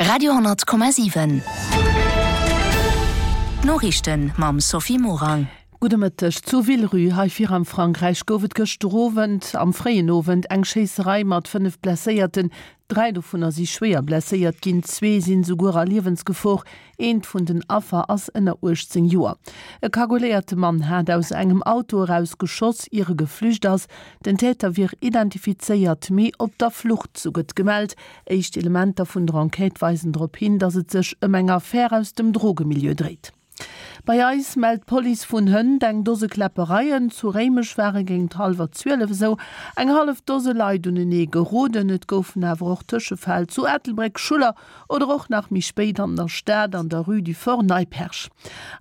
Radio,7 D'Noriichten mam Sophie Morang. Gudde Mëtteg. Zu Villerupt hei vir am Frankräich gouf et gëschter Owend am fréien Owend eng Schéisserei mat 5 Blesséierten. 3 dovunner si schwéier blesséiert ginn, zwee sinn esouguer a Liewensgefor. Eent vun den Affer ass ënner 18 Joer. E kagoléierte Mann hat aus engem Auto eraus geschoss, ier e geflücht ass. Den Täter wier identifizéiert, mee op der Flucht, sou gëtt gemellt. Éischt Elementer vun der Enquête weisen drop hin, datt et sech ëm eng Affär aus dem Drogemilieu dréit. Bei eis mellt d'Police vun hënt eng Dose Kläppereien. Zu Réimech ware géint hallwer 12 esou eng hallef Dose Leit unenee geroden. Et goufen awer och Tëschefäll zu Ettelbréck, Schuller oder och nach méi spéit an der Stad an der Rue du Fort Neipperg.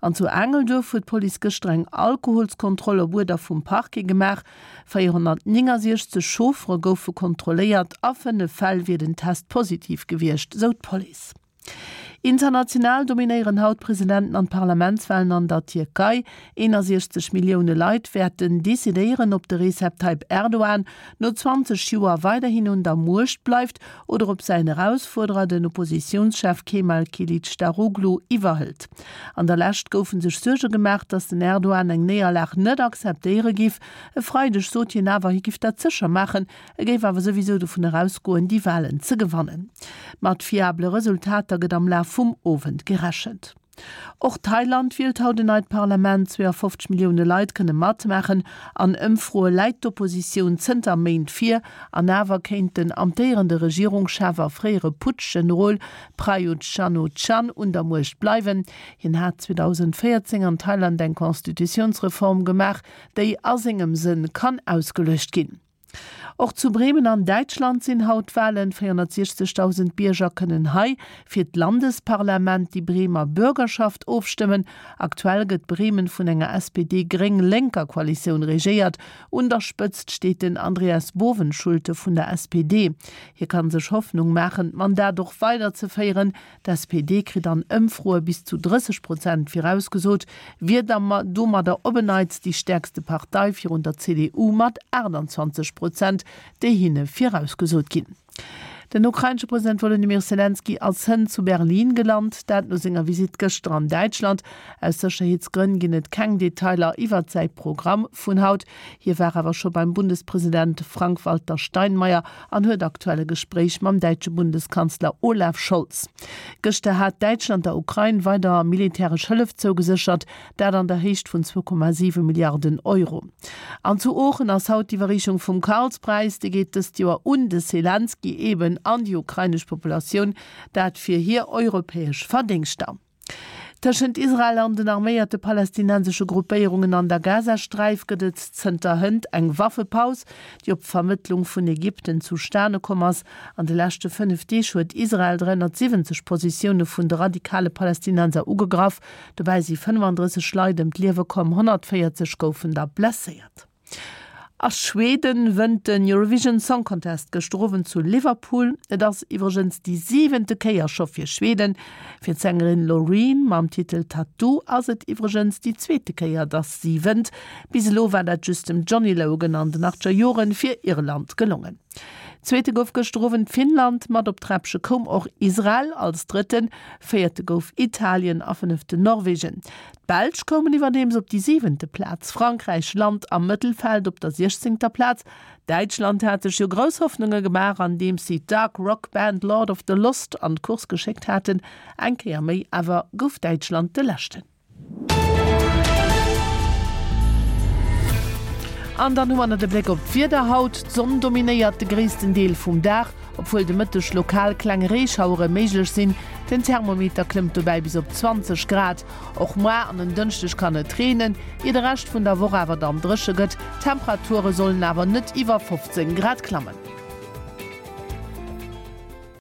An zu Aangelduerf huet d'Police gëschter eng Alkoholskontroll op Uerder vum Parquet gemaach. 469 Chauffere goufe kontrolléiert, a 5 Fäll wier den Test positiv gewiescht, sou d'Police. International dominéieren haut d'Presidenten an d'Parlamentswalen an der Tierkei. 61 Millioune Leit wäerten decidéieren, ob de Recep Tayyip Erdogan no 20 Joer weiderhin un der Muecht bleift oder ob säin Erausfuerderer, den Oppositiounschef Kemal Kilicdaroglu, iwwerhëlt. An der Lescht goufe sech Suerge gemaach, datt den Erdogan eng Néierlag net akzeptéiere giff. E Freideg sot hien awer, hie giff dat sécher maachen, E géif awer souwisou dovun erausgoen, déi Walen ze gewannen. Mat fiabele Resultater gëtt am Laf vum Owend gerechent. Och Thailand wielt haut en neit Parlament. 52 Millioune Leit kënne matmaachen. An Ëmfroe läit d'Oppositioun zënter Méint vir. An awer kéint den amtéierende Regierungschef a fréiere Putsch-Generol Prayut Chan-o-chan un der Muecht bleiwen. Hien hat 2014 an Thailand eng Constitutiounsreform gemaach, déi a sengem Sënn kann ausgeluecht ginn. Och zu Bremen an Däitschland sinn haut Walen. 460.000 Bierger kënnen hei fir d'Landesparlament, déi Bremer Bürgerschaft, ofstëmmen. Aktuell gëtt Bremen vun enger SPD-Gréng-Lénker Koalitioun regéiert. Un der Spëtzt steet den Andreas Bovenschulte vun der SPD. Hie kann sech Hoffnung maachen, d'Mandat och weiderzeféieren. D'SPD kritt an Ëmfroe bis zu 30 Prozent virausgesot, wier da domadder op en Neits déi stäerkste Partei virun der CDU mat 28 Prozent, déi hinne virausgesot ginn. Den ukrainesche President Wolodymyr Selenskyj ass hënt zu Berlin gelant, dat no senger Visitt gëschter an Däitschland. Aus Sécherheetsgrënn ginn et keng Detailer iwwert säi Programm vun haut. Hie war awer scho beim Bundespresident Frank-Walter Steinmeier an huet aktuell e Gespréich mam däitsche Bundeskanzler Olaf Scholz. Gëschter hat Däitschland der Ukrain weider militäresch Hëllef zougeséchert, dat an der Héicht vun 2,7 Milliarden Euro. An zu Oochen ass haut d'Iwwerreechung vum Karlspräis. Dee geet dëst Joer un de Selenskyj, eben an déi ukrainesch Populatioun, dat fir hir europäesch Verdéngschter. Tëschent Israel an den arméierte palästinensesche Gruppéierungen an der Gazasträif gëtt et zënter hënt eng Waffepaus, déi op Vermëttlung vun Ägypten zustane komm ass. An de leschte 5 Deeg huet Israel 370 Positioune vun de radikale Palästinenser ugegraff. Dobäi si 35 Leit ëm d'Liewe komm, 140 goufen der blesséiert. A Schweden wënnt den Eurovision Song Contest gëschter Owend zu Liverpool. Et ass iwwregens déi siwente Kéier scho fir Schweden. Fir d'Sängerin Loreen mam Titel Tattoo ass et iwwregens déi zweete Kéier, dass si wënnt. Bis elo war dat just dem Johnny Logan an den achtger Joren fir Irland gelongen. Zweete gouf gëschter Owend Finnland, mat op d'Träppche koum och Israel als Drëtten, Véierte gouf Italien a Fënneften Norwegen. D'Belsch koumen iwwerdeems op déi siwente Plaz, Frankräich lant am Mëttelfeld op der siechzéngter Plaz. Däitschland hat sech jo grouss Hoffnunge gemaach, andeems si d'Dark Rock Band Lord of the Lost an d'Course geschéckt haten. Eng Kéier méi awer gouf Däitschland de Leschten. An dann hu mer nach de Bléck op d'Wieder haut. D'Sonn dominéiert de gréissten Deel vum Dag. Obwuel de Mëtteg lokal kleng Reeschauere méiglech sinn, den Thermometer klëmmt dobäi bis op 20 Grad. Och moar an en Dënschdeg kann et reenen, ier de Rescht vun der Woch awer dann dréche gëtt. D'Temperature sollen awer net iwwer 15 Grad klammen.